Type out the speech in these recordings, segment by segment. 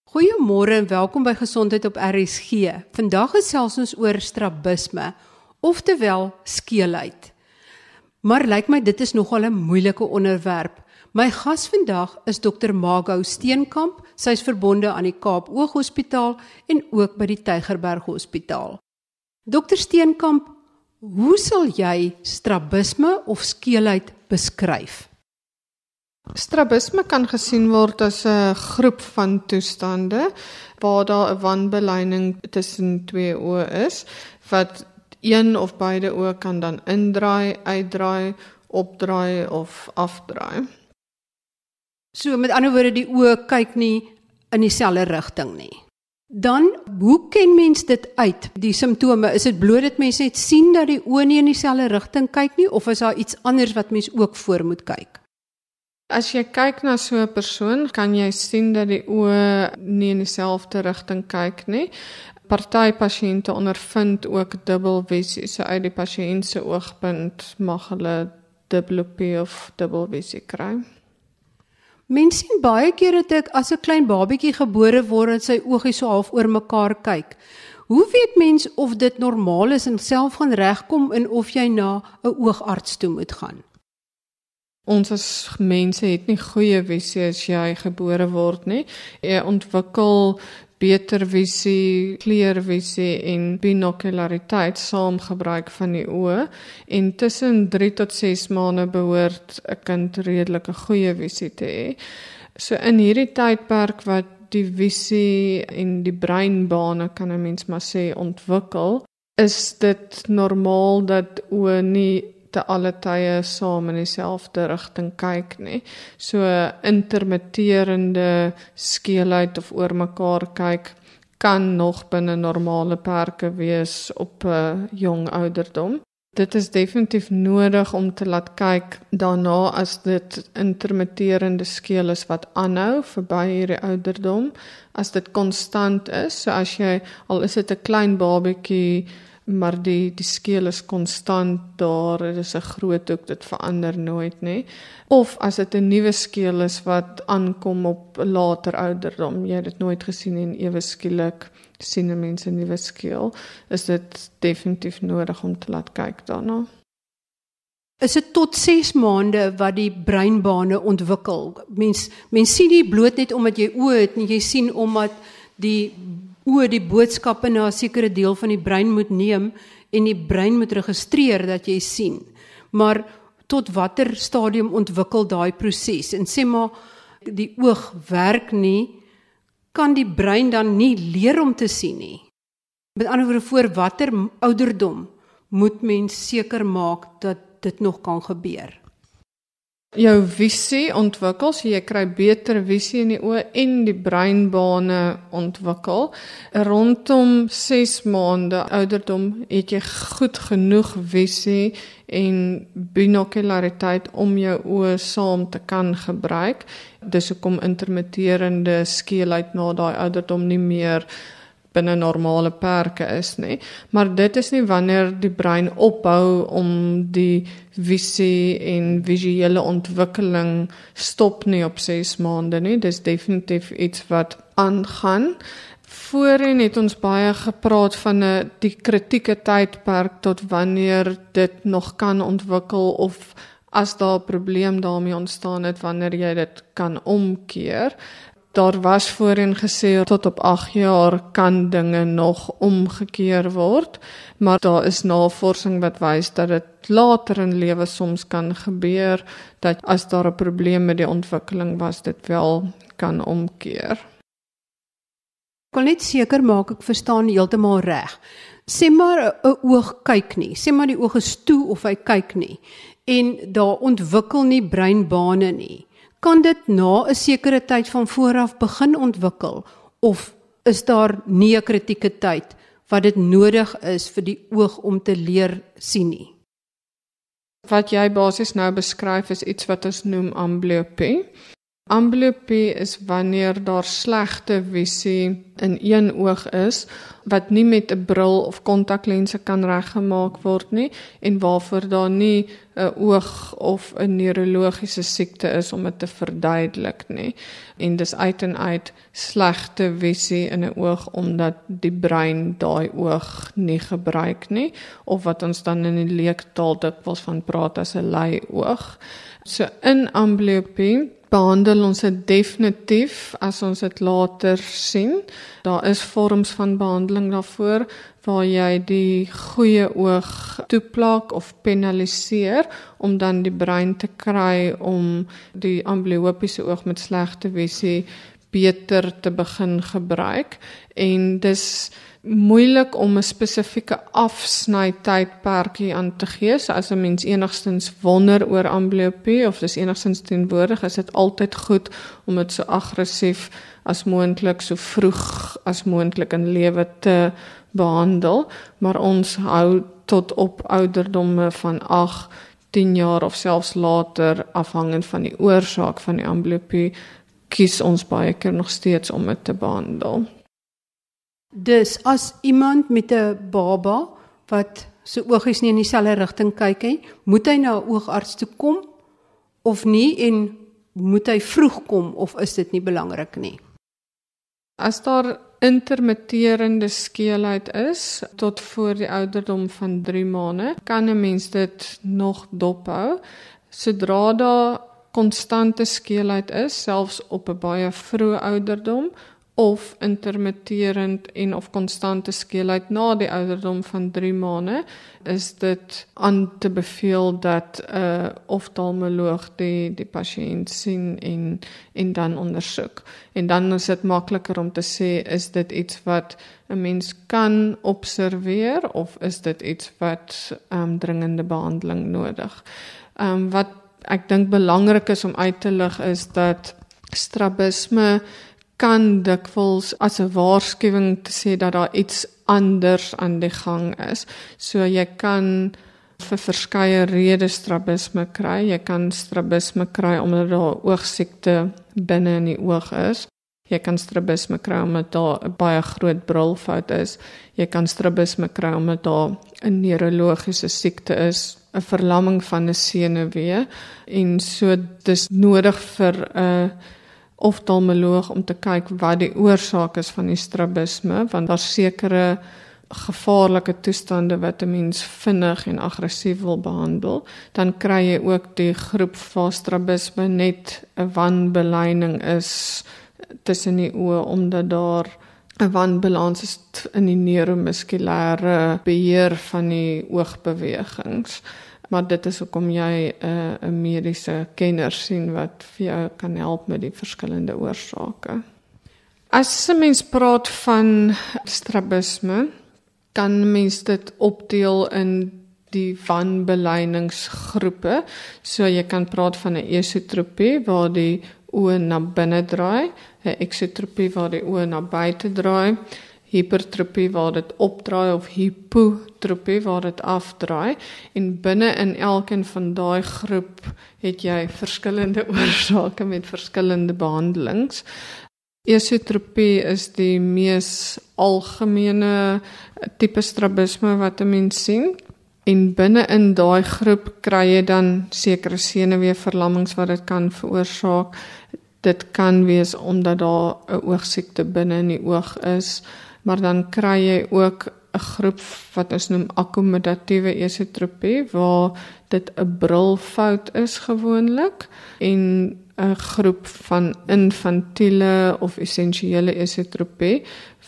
Goeiemôre en welkom by Gesondheid op RSG. Vandag gesels ons oor strabisme, oftewel skeelheid. Maar lyk my dit is nogal 'n moeilike onderwerp. My gas vandag is Dr. Margot Steenkamp. Sy is verbonde aan die Kaap Ooghospitaal en ook by die Tygerberg Hospitaal. Dr. Steenkamp, hoe sal jy strabisme of skeelheid beskryf? Strabisme kan gesien word as 'n groep van toestande waar daar 'n wanbeleining tussen twee oë is, wat een of beide oë kan dan indraai, uitdraai, opdraai of afdraai. So met ander woorde, die oë kyk nie in dieselfde rigting nie. Dan, hoe ken mens dit uit, die simptome? Is dit bloot dat mens net sien dat die oë nie in dieselfde rigting kyk nie, of is daar iets anders wat mens ook voor moet kyk? As jy kyk na so 'n persoon, kan jy sien dat die oë nie in dieselfde rigting kyk nie. Party pasiënte ondervind ook dubbelvisie, so uit die pasiënt se oogpunt mag hulle diplopie of dubbelvisie kry. Mens sien baie keer dat ek as 'n klein babietjie gebore word en sy oogies so half oor mekaar kyk. Hoe weet mens of dit normaal is en self gaan regkom en of jy na 'n oogarts toe moet gaan? Ons as mense het nie goeie visie as jy gebore word nie. Jy ontwikkel beter visie, kleurvisie en binokulariteit saam gebruik van die oë, en tussen 3 tot 6 maande behoort 'n kind redelike goeie visie te hê. So in hierdie tydperk wat die visie en die breinbane, kan 'n mens maar sê, ontwikkel, is dit normaal dat oë nie te alle tye saam in dieselfde rigting kyk nie. So intermitterende skeelheid of oor mekaar kyk kan nog binne normale perke wees op 'n jong ouderdom. Dit is definitief nodig om te laat kyk daarna as dit intermitterende skeel is wat aanhou verby hierdie ouderdom, as dit konstant is, so as jy, al is dit 'n klein babietjie, maar die skeel is konstant daar, dit is 'n groot hoek, dit verander nooit nie. Of as dit 'n nuwe skeel is wat aankom op later ouderdom, jy het dit nooit gesien en ewe skielik sien 'n mens 'n nuwe skeel, is dit definitief nodig om te laat kyk daarna. Is dit tot 6 maande wat die breinbane ontwikkel? Mens sien nie bloot net omdat jy oë het nie, jy sien omdat die oë die boodskappe na 'n sekere deel van die brein moet neem en die brein moet registreer dat jy sien. Maar tot watter stadium ontwikkel daai proses? En sê maar die oog werk nie, kan die brein dan nie leer om te sien nie? Met ander woorde, voor watter ouderdom moet mens seker maak dat dit nog kan gebeur? Jou visie ontwikkel, so jy kry beter visie in die oë en die breinbane ontwikkel. Rondom 6 maande ouderdom het jy goed genoeg visie en binokulariteit om jou oë saam te kan gebruik. Dis hoekom intermitterende skeelheid na daai ouderdom nie meer binne normale perke is nie. Maar dit is nie wanneer die brein ophou om die visie en visuele ontwikkeling stop nie op 6 maande nie. Dis definitief iets wat aangaan. Voorheen het ons baie gepraat van die kritieke tydperk tot wanneer dit nog kan ontwikkel, of as daar 'n probleem daarmee ontstaan het, wanneer jy dit kan omkeer. Daar was voorheen gesê tot op 8 jaar kan dinge nog omgekeer word, maar daar is navorsing wat wys dat dit later in lewe soms kan gebeur, dat as daar 'n probleem met die ontwikkeling was, dit wel kan omkeer. Ek wil net seker maak ek verstaan heeltemal reg. Sê maar 'n oog kyk nie, sê maar die oog is toe of hy kyk nie, en daar ontwikkel nie breinbane nie. Kan dit na 'n sekere tyd van vooraf begin ontwikkel, of is daar nie 'n kritieke tyd wat dit nodig is vir die oog om te leer sien nie? Wat jy basies nou beskryf is iets wat ons noem amblyopie. Amblyopie is wanneer daar slegte visie in een oog is, wat nie met 'n bril of kontaklense kan reggemaak word nie, en waarvoor daar nie 'n oog of 'n neurologiese siekte is om dit te verduidelik nie. En dis uit en uit slegte visie in 'n oog, omdat die brein daai oog nie gebruik nie, of wat ons dan in die leektaal dikwels van praat as 'n lei oog. So in amblyopie behandel ons dit definitief as ons dit later sien. Daar is vorms van behandeling daarvoor, waar jy die goeie oog toeplak of penaliseer, om dan die brein te kry om die amblyopiese oog met slegte visie beter te begin gebruik. En dis moeilik om 'n spesifieke afsnytydperk hier aan te gee. So as 'n mens enigstens wonder oor amblyopie of dis enigstens teenwoordig, is dit altyd goed om dit so aggressief as moontlik, so vroeg as moontlik in lewe te behandel. Maar ons hou tot op ouderdomme van 8, 10 jaar of selfs later, afhangend van die oorsaak van die amblyopie, kies ons baie keer nog steeds om dit te behandel. Dus as iemand met 'n baba wat sy oogies nie in dieselfde rigting kyk nie, moet hy na 'n oogarts toe kom of nie, en moet hy vroeg kom of is dit nie belangrik nie? As daar intermitterende skeelheid is tot voor die ouderdom van 3 maande, kan 'n mens dit nog dophou. Sodra daar konstante skeelheid is, selfs op 'n baie vroeë ouderdom, of intermitterend en of konstante skeelheid na die ouderdom van 3 maande, is dit aan te beveel dat 'n oftalmoloog die pasiënt sien en dan ondersoek. En dan is dit makliker om te sê, is dit iets wat 'n mens kan observeer, of is dit iets wat dringende behandeling nodig. Wat ek dink belangrik is om uit te lig, is dat strabisme kan dikwels as 'n waarskuwing te sê dat daar iets anders aan die gang is. So jy kan vir verskeie redes strabisme kry. Jy kan strabisme kry omdat daar oogsiekte binne in die oog is. Jy kan strabisme kry omdat daar 'n baie groot brilfout is. Jy kan strabisme kry omdat daar 'n neurologiese siekte is, 'n verlamming van 'n senuwee, en so dis nodig vir 'n oftalmoloog om te kyk wat die oorsaak is van die strabisme, want daar's sekere gevaarlike toestande wat 'n mens vinnig en aggressief wil behandel. Dan kry jy ook die groep waar strabisme net 'n wanbeleining is tussen die oë, omdat daar 'n wanbalans is in die neuromuskulêre beheer van die oogbewegings. Maar dit is hoekom jy 'n mediese kenner sien wat vir jou kan help met die verskillende oorsake. As 'n mens praat van strabisme, kan mens dit opdeel in die wanbeleiningsgroepe. So jy kan praat van 'n esotropie waar die oë na binne draai, 'n eksotropie waar die oë na buite draai, hipertropie waar dit opdraai of hipotropie waar dit afdraai, en binne in elkeen van daai groep het jy verskillende oorsake met verskillende behandelings. Esotropie is die mees algemene tipe strabisme wat 'n mens sien, en binne in daai groep kry jy dan sekere senuweeverlammings wat dit kan veroorsaak. Dit kan wees omdat daar 'n oogsiekte binne in die oog is, maar dan kry jy ook 'n groep wat ons noem akkommodatiewe esotropie, waar dit 'n brilfout is gewoonlik, en 'n groep van infantiele of essensiële esotropie,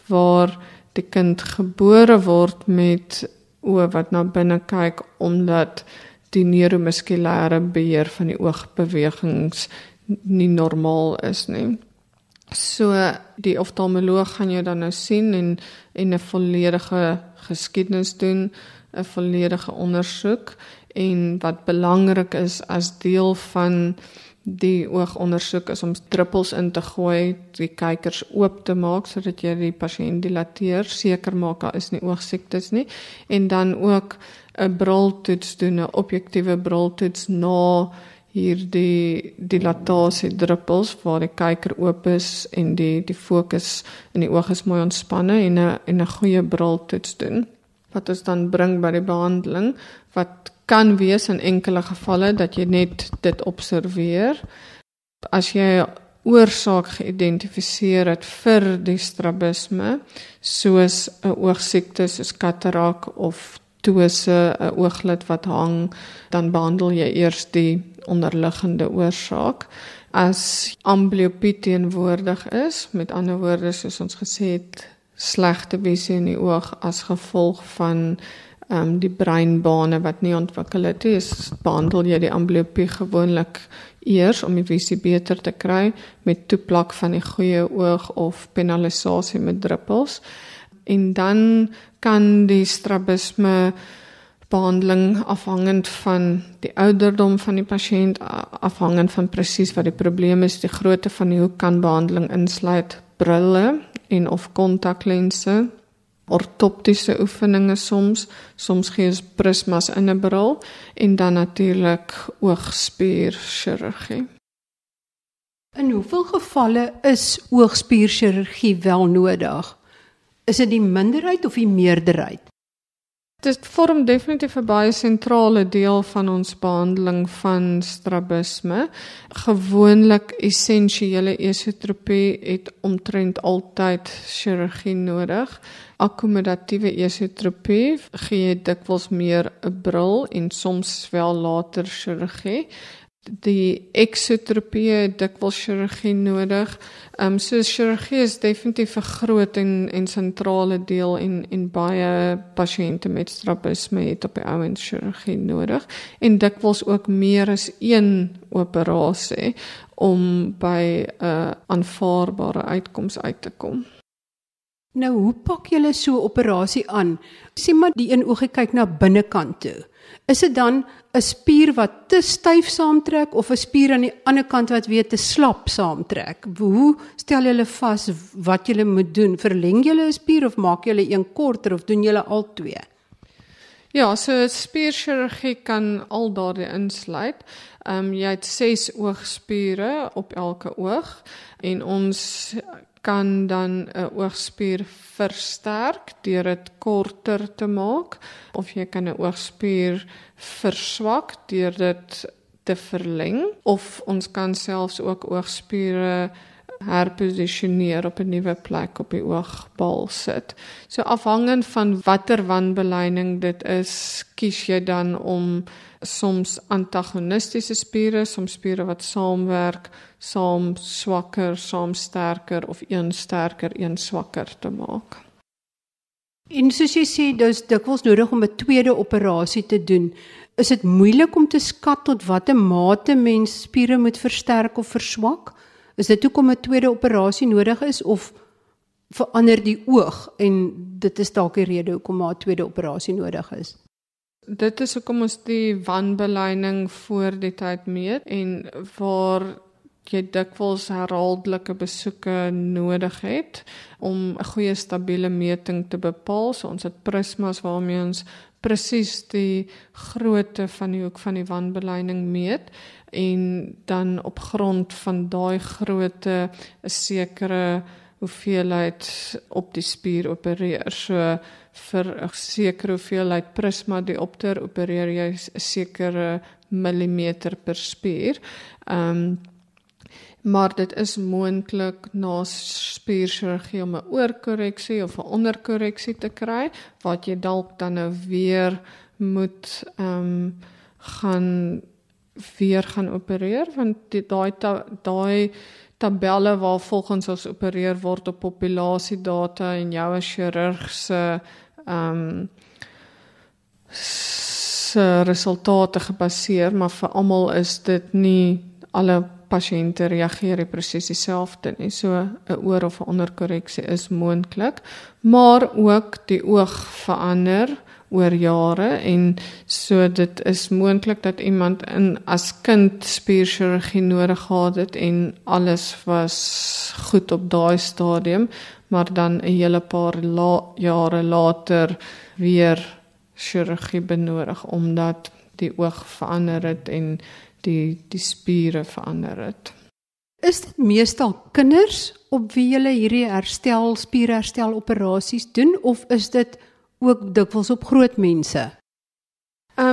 waar die kind gebore word met oë wat na binne kyk, omdat die neuromuskulêre beheer van die oogbewegings nie normaal is nie. So die oftalmoloog gaan jou dan nou sien en 'n volledige geskiedenis doen, 'n volledige ondersoek, en wat belangrik is as deel van die oogondersoek is om druppels in te gooi, die kykers oop te maak sodat jy die pasiënt dilateer, seker maak daar is nie oogsiektes nie, en dan ook 'n briltoets doen, 'n objektiewe briltoets na hierdie dilatasiedruppels waar die kyker oop is en die fokus in die oog is mooi ontspanne en 'n goeie briltoets doen. Wat ons dan bring by die behandeling, wat kan wees in enkele gevalle dat jy net dit observeer. As jy 'n oorsaak geïdentifiseer het vir die strabisme, soos 'n oogsiekte soos katarak of ptose, 'n ooglid wat hang, dan behandel jy eers die onderliggende oorsaak. As amblyopie teenwoordig is, met ander woorde soos ons gesê het, slegte visie in die oog as gevolg van die breinbane wat nie ontwikkel het nie, behandel jy die amblyopie gewoonlik eers om die visie beter te kry met toeplak van die goeie oog of penalisasie met druppels. En dan kan die strabisme behandeling afhangend van die ouderdom van die pasiënt, afhangend van presies wat die probleem is, die grootte van die hoek kan behandeling insluit brille en of kontaklense, ortoptiese oefeninge soms gee ons prismas in 'n bril en dan natuurlik oogspierchirurgie. In hoeveel gevalle is oogspierchirurgie wel nodig? Is dit die minderheid of die meerderheid? Dit vorm definitief 'n baie sentrale deel van ons behandeling van strabisme. Gewoonlik essensiële esotropie het omtrent altyd chirurgie nodig. Akkommodatiewe esotropie gee dikwels meer 'n bril en soms wel later chirurgie. Die exotropie het dikwels chirurgie nodig. So chirurgie is definitief 'n groot en sentrale deel en baie pasiënte met strabisme het op die ouend chirurgie nodig en dikwels ook meer as een operasie om by 'n aanvaarbare uitkoms uit te kom. Nou, hoe pak julle so 'n operasie aan? Sê maar die een oogie kyk na binnekant toe. Is dit dan 'n spier wat te styf saamtrek of 'n spier aan die ander kant wat weer te slap saamtrek? Hoe stel julle vas wat julle moet doen? Verleng julle 'n spier of maak julle een korter of doen julle al twee? Ja, so spierchirurgie kan al daardie insluit. Jy het 6 oogspiere op elke oog en ons kan dan 'n oogspier versterk deur dit korter te maak of jy kan 'n oogspier verswak deur dit te verleng of ons kan selfs ook oogspiere herposisioneer op 'n nuwe plek op die oogbal sit. So afhangend van watter wanbeleining dit is, kies jy dan om soms antagonistiese spiere, soms spiere wat saamwerk, saam swakker, saam sterker of een sterker, een swakker te maak. En soos jy sê, dis dikwels nodig om 'n tweede operasie te doen. Is dit moeilik om te skat tot watter mate mens spiere moet versterk of verswak? Is dit hoekom 'n tweede operasie nodig is of verander die oog en dit is dalk die rede hoekom 'n tweede operasie nodig is? Dit is hoekom ons die wanbeleining voor die tyd meet en waar jy dikwels herhaaldelike besoeke nodig het om 'n goeie stabiele meting te bepaal. So ons het prismas waarmee ons presies die grootte van die hoek van die wanbeleining meet en dan op grond van daai grootte 'n sekere hoeveelheid op die spier opereer. So vir 'n sekere hoeveelheid prisma diopter opereer jy 'n sekere millimeter per spier. Maar dit is moontlik na spierchirurgie om 'n oorkorreksie of 'n onderkorreksie te kry, wat jy dalk dan nou weer moet gaan opereer, want daai tabelle waar volgens ons opereer word op populasiedata en jou as chirurg se resultate gebaseer, maar vir almal is dit nie alle pasiënte reageer presies dieselfde nie. So 'n oor- of 'n onderkorreksie is moontlik, maar ook die oog verander oor jare en so dit is moontlik dat iemand as kind spierchirurgie nodig gehad het en alles was goed op daai stadium, maar dan 'n hele paar jare later weer chirurgie benodig omdat die oog verander het en die spiere verander het. Is dit meestal kinders op wie julle hierdie spierherstel operasies doen of is dit ook dikwels op groot mense?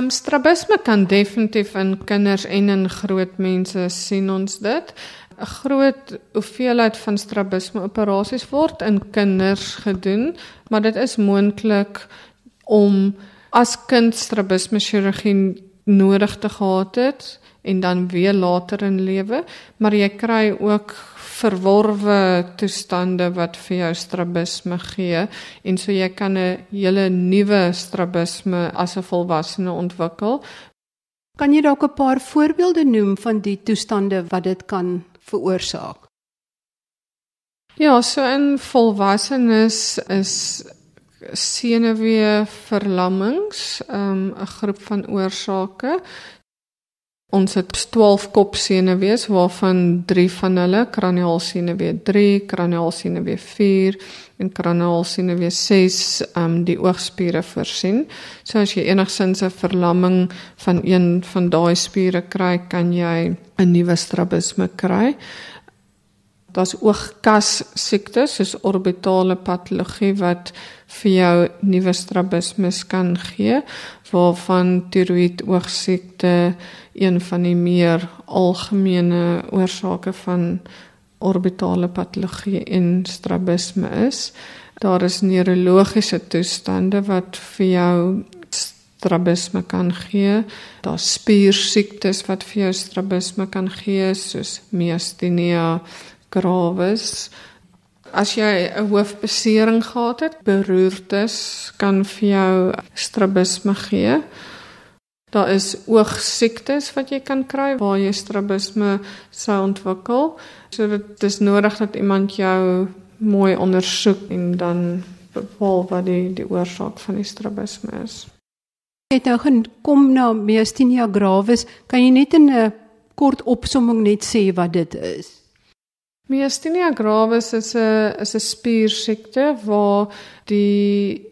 Strabisme kan definitief in kinders en in groot mense sien ons dit. 'n Groot hoeveelheid van strabisme operasies word in kinders gedoen, maar dit is moontlik om as kind strabisme chirurgie nodig te gehad het en dan weer later in lewe, maar jy kry ook verworwe toestande wat vir jou strabisme gee en so jy kan 'n hele nuwe strabisme as 'n volwassene ontwikkel. Kan jy dalk 'n paar voorbeelde noem van die toestande wat dit kan veroorsaak? Ja, so in volwassenes is senuweeverlammings 'n groep van oorsake. Ons het 12 kopsenuwees waarvan 3 van hulle, kraniaalsenuwee 3, kraniaalsenuwee 4 en kraniaalsenuwee 6 die oogspiere voorsien. So as jy enigsins 'n verlamming van een van daai spiere kry, kan jy 'n nuwe strabisme kry. Daar's oogkas siektes soos orbitale patologie wat vir jou nuwe strabismes kan gee, waarvan tiroïed oogsiekte een van die meer algemene oorsake van orbitale patologie en strabisme is. Daar is neurologiese toestande wat vir jou strabisme kan gee. Daar's spiersiektes wat vir jou strabisme kan gee, soos myasthenia gravis. As jy 'n hoofbesering gehad het, beroertes kan vir jou strabisme gee. Daar is oogsiektes wat jy kan kry waar jy strabisme sou ontwikkel. So dit is nodig dat iemand jou mooi ondersoek en dan bepaal wat die oorsaak van die strabisme is. Jy het nou gekom na myasthenia gravis, kan jy net in 'n kort opsomming net sê wat dit is? Myasthenia gravis is 'n spiersiekte waar die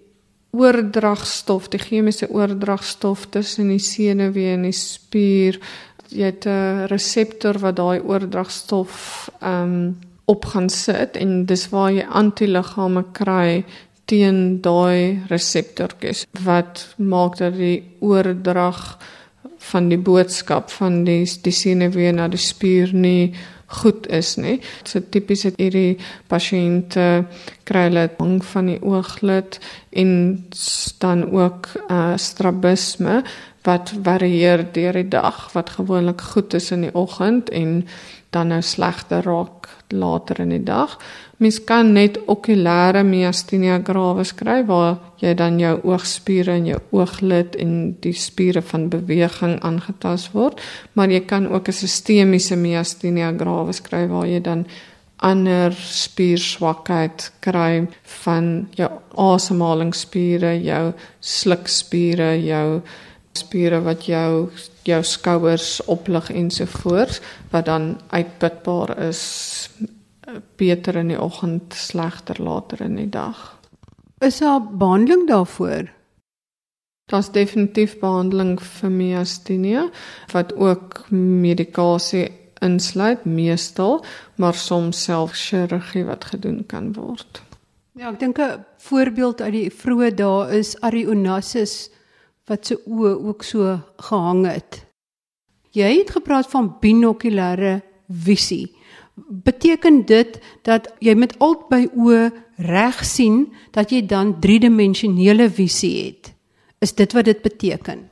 oordragstof, die chemiese oordragstof tussen die senuwee en die spier, jy het 'n reseptor wat daai oordragstof op gaan sit en dis waar jy antiliggame kry teen daai reseptortjies wat maak dat die oordrag van die boodskap van die senuwee na die spier nie goed is nie. So tipies het hierdie pasiënte kry hulle hang van die ooglid en dan ook strabisme wat varieer deur die dag, wat gewoonlik goed is in die oggend en dan nou slegter raak later in die dag. Mens kan net okulêre myasthenia gravis kry waar jy dan jou oogspiere en jou ooglid en die spiere van beweging aangetast word, maar jy kan ook 'n sistemiese myasthenia gravis kry waar jy dan ander spierswakheid kry van jou asemhalingsspiere, jou slukspiere, jou spiere wat jou skouers oplig ensovoorts, wat dan uitputbaar is, beter in die oggend, slegter later in die dag. Is daar behandeling daarvoor? Daar's definitief behandeling vir myasthenia, wat ook medikasie insluit, meestal, maar soms self chirurgie wat gedoen kan word. Ja, ek dink 'n voorbeeld uit die vroeë dae is Ari Onassis, wat sy oë ook so gehang het. Jy het gepraat van binokulêre visie. Beteken dit dat jy met albei oë reg sien, dat jy dan driedimensionele visie het? Is dit wat dit beteken?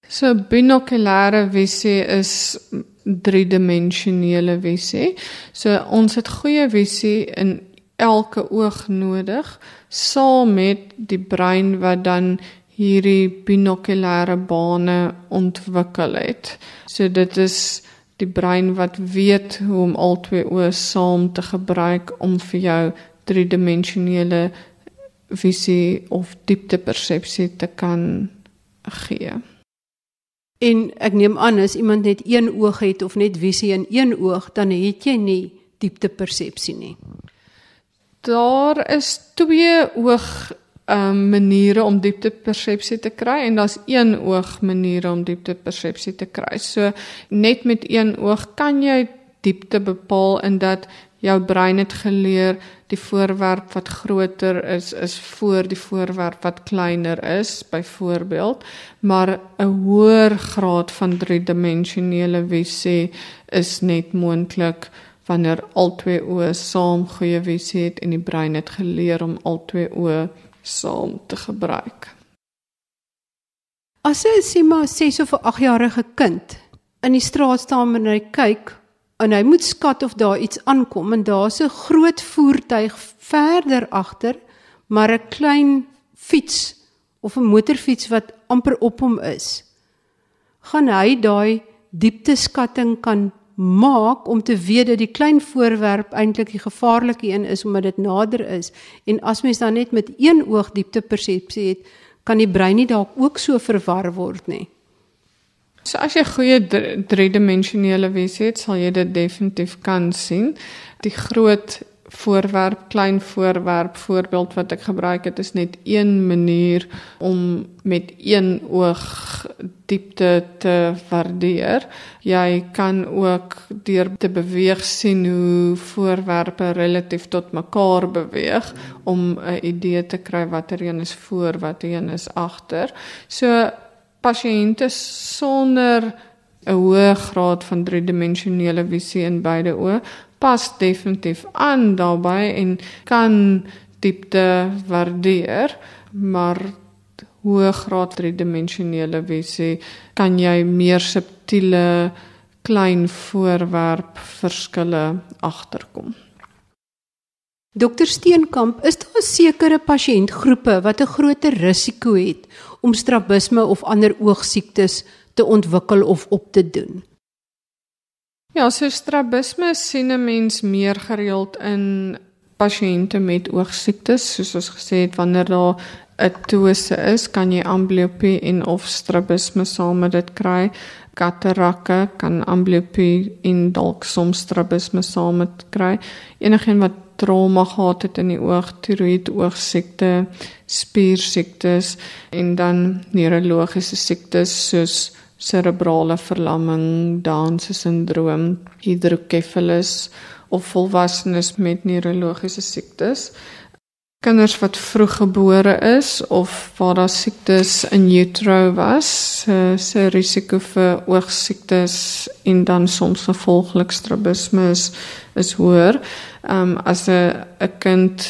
So binokulêre visie is driedimensionele visie. So ons het goeie visie in elke oog nodig, saam met die brein wat dan hierdie binokulêre bane ontwikkel het. So dit is die brein wat weet hoe om al twee oë saam te gebruik om vir jou driedimensionele visie of dieptepersepsie te kan gee. En ek neem aan, as iemand net een oog het of net visie in een oog, dan het jy nie dieptepersepsie nie. Daar is twee maniere om dieptepersepsie te kry en daar's een oog maniere om dieptepersepsie te kry. So net met een oog kan jy diepte bepaal in dat jou brein het geleer die voorwerp wat groter is voor die voorwerp wat kleiner is, byvoorbeeld, maar 'n hoër graad van driedimensionele visie is net moontlik wanneer al twee oë saam goeie visie het en die brein het geleer om al twee oë saam te gebruik. As 'n sê maar 6 of 'n 8-jarige kind in die straat staan en hy kyk en hy moet skat of daar iets aankom en daar's 'n groot voertuig verder agter, maar 'n klein fiets of 'n motorfiets wat amper op hom is, gaan hy daai diepteskatting kan maak om te weet dat die klein voorwerp eintlik die gevaarlike een is omdat dit nader is. En as mens dan net met een oog dieptepersepsie het, kan die brein nie dalk ook so verwar word nie. So as jy goeie driedimensionele visie het, sal jy dit definitief kan sien. Die groot voorwerp, klein voorwerp voorbeeld wat ek gebruik het, is net een manier om met een oog diepte te waardeer. Jy kan ook deur te beweeg sien hoe voorwerpe relatief tot mekaar beweeg om 'n idee te kry watter een is voor, watter een is agter. So pasiënte sonder 'n hoë graad van driedimensionele visie in beide oë pas definitief aan daarbey en kan diepte waardeer, maar hoë graad driedimensionele visie kan jy meer subtiele klein voorwerp verskille agterkom. Dr. Steenkamp, is daar sekere pasiëntgroepe wat 'n groter risiko het om strabisme of ander oogsiektes te ontwikkel of op te doen? Ja, so strabisme sien 'n mens meer gereeld in pasiënte met oogsiektes, soos ons gesê het, wanneer daar 'n ptose is, kan jy amblyopie en of strabisme saam met dit kry. Katarakke kan amblyopie en dalk soms strabisme saam met kry. Enigeen wat trauma gehad het in die oog, tiroïed oogsiekte, spiersiektes en dan neurologiese siektes soos cerebrale verlamming, Down syndroom, hydrocephalus of volwassenes met neurologiese siektes. Kinders wat vroeg gebore is of waar daar siektes in utero was, se risiko vir oogsiektes en dan soms gevolglik strabisme is hoër. As 'n kind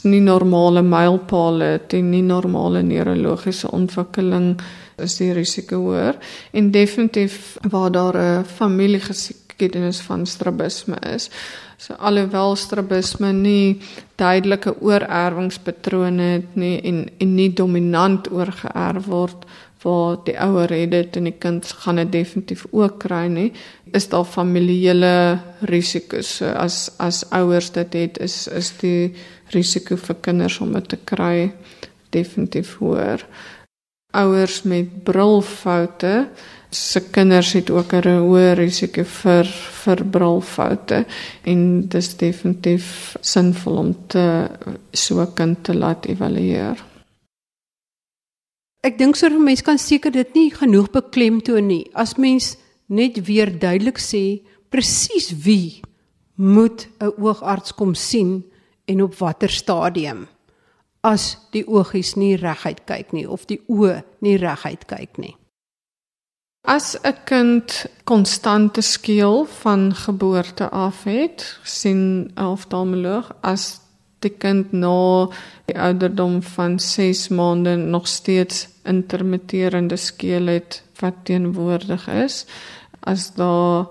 nie normale mylpale het en nie normale neurologiese ontwikkeling, is die risiko hoër. En definitief waar daar 'n familiegeskiedenis van strabisme is. So alhoewel strabisme nie duidelike oorerwingspatrone het nie en nie dominant oorgeerf word, waar die ouer het dit en die kind gaan dit definitief ook kry nie, is daar familiele risiko's. So as ouers dit het, is die risiko vir kinders om dit te kry definitief hoër. Ouers met brilfoute, se kinders het ook 'n hoë risiko vir brilfoute en dis definitief sinvol om so 'n kind te laat evalueer. Ek dink so 'n mens kan seker dit nie genoeg beklemtoon nie. As mens net weer duidelik sê presies wie moet 'n oogarts kom sien en op watter stadium, as die oogies nie reguit kyk nie of die oë nie reguit kyk nie. As 'n kind konstante skeel van geboorte af het, sien 'n oftalmoloog, as die kind na die ouderdom van 6 maande nog steeds intermitterende skeel het wat teenwoordig is, as daar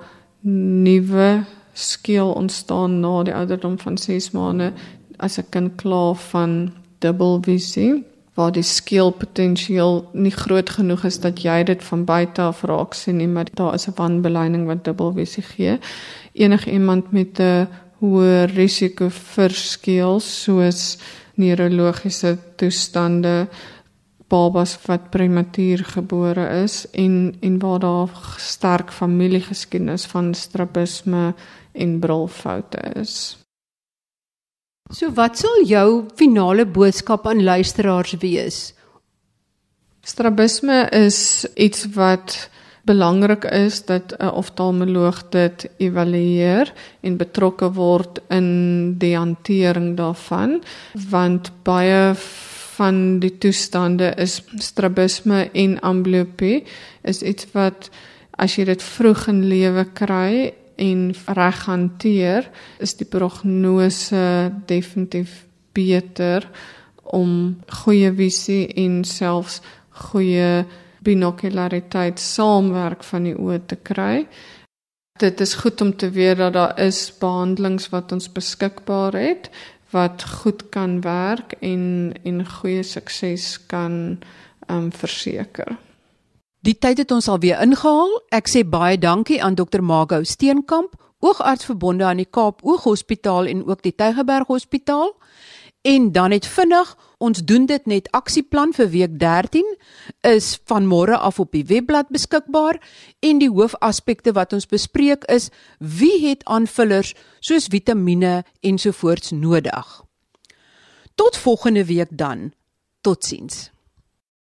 nuwe skeel ontstaan na die ouderdom van 6 maande, as 'n kind klaar van dubbelvisie, waar die skeelpotensiaal nie groot genoeg is dat jy dit van buite af raak sien nie, maar daar is 'n wanbeleining wat dubbelvisie gee. Enige iemand met 'n hoë risiko vir skeel, soos neurologiese toestande, babas wat prematuur gebore is en waar daar sterk familiegeskiedenis van strabisme en brilfoute is. So wat sal jou finale boodskap aan luisteraars wees? Strabisme is iets wat belangrik is dat 'n oftalmoloog dit evalueer en betrokke word in die hantering daarvan, want baie van die toestande is strabisme en amblyopie, is iets wat as jy dit vroeg in lewe kry en reg hanteer, is die prognose definitief beter om goeie visie en selfs goeie binokulariteit saamwerk van die oë te kry. Dit is goed om te weet dat daar is behandelings wat ons beskikbaar het, wat goed kan werk en goeie sukses kan verseker. Die tyd het ons alweer ingehaal. Ek sê baie dankie aan Dr. Margot Steenkamp, oogarts verbonde aan die Kaap Ooghospitaal en ook die Tygerberg Hospitaal. En dan net vinnig, ons doen dit net aksieplan vir week 13, is van môre af op die webblad beskikbaar, en die hoofaspekte wat ons bespreek is, wie het aanvullers soos vitamiene ensovoorts nodig. Tot volgende week dan, totsiens.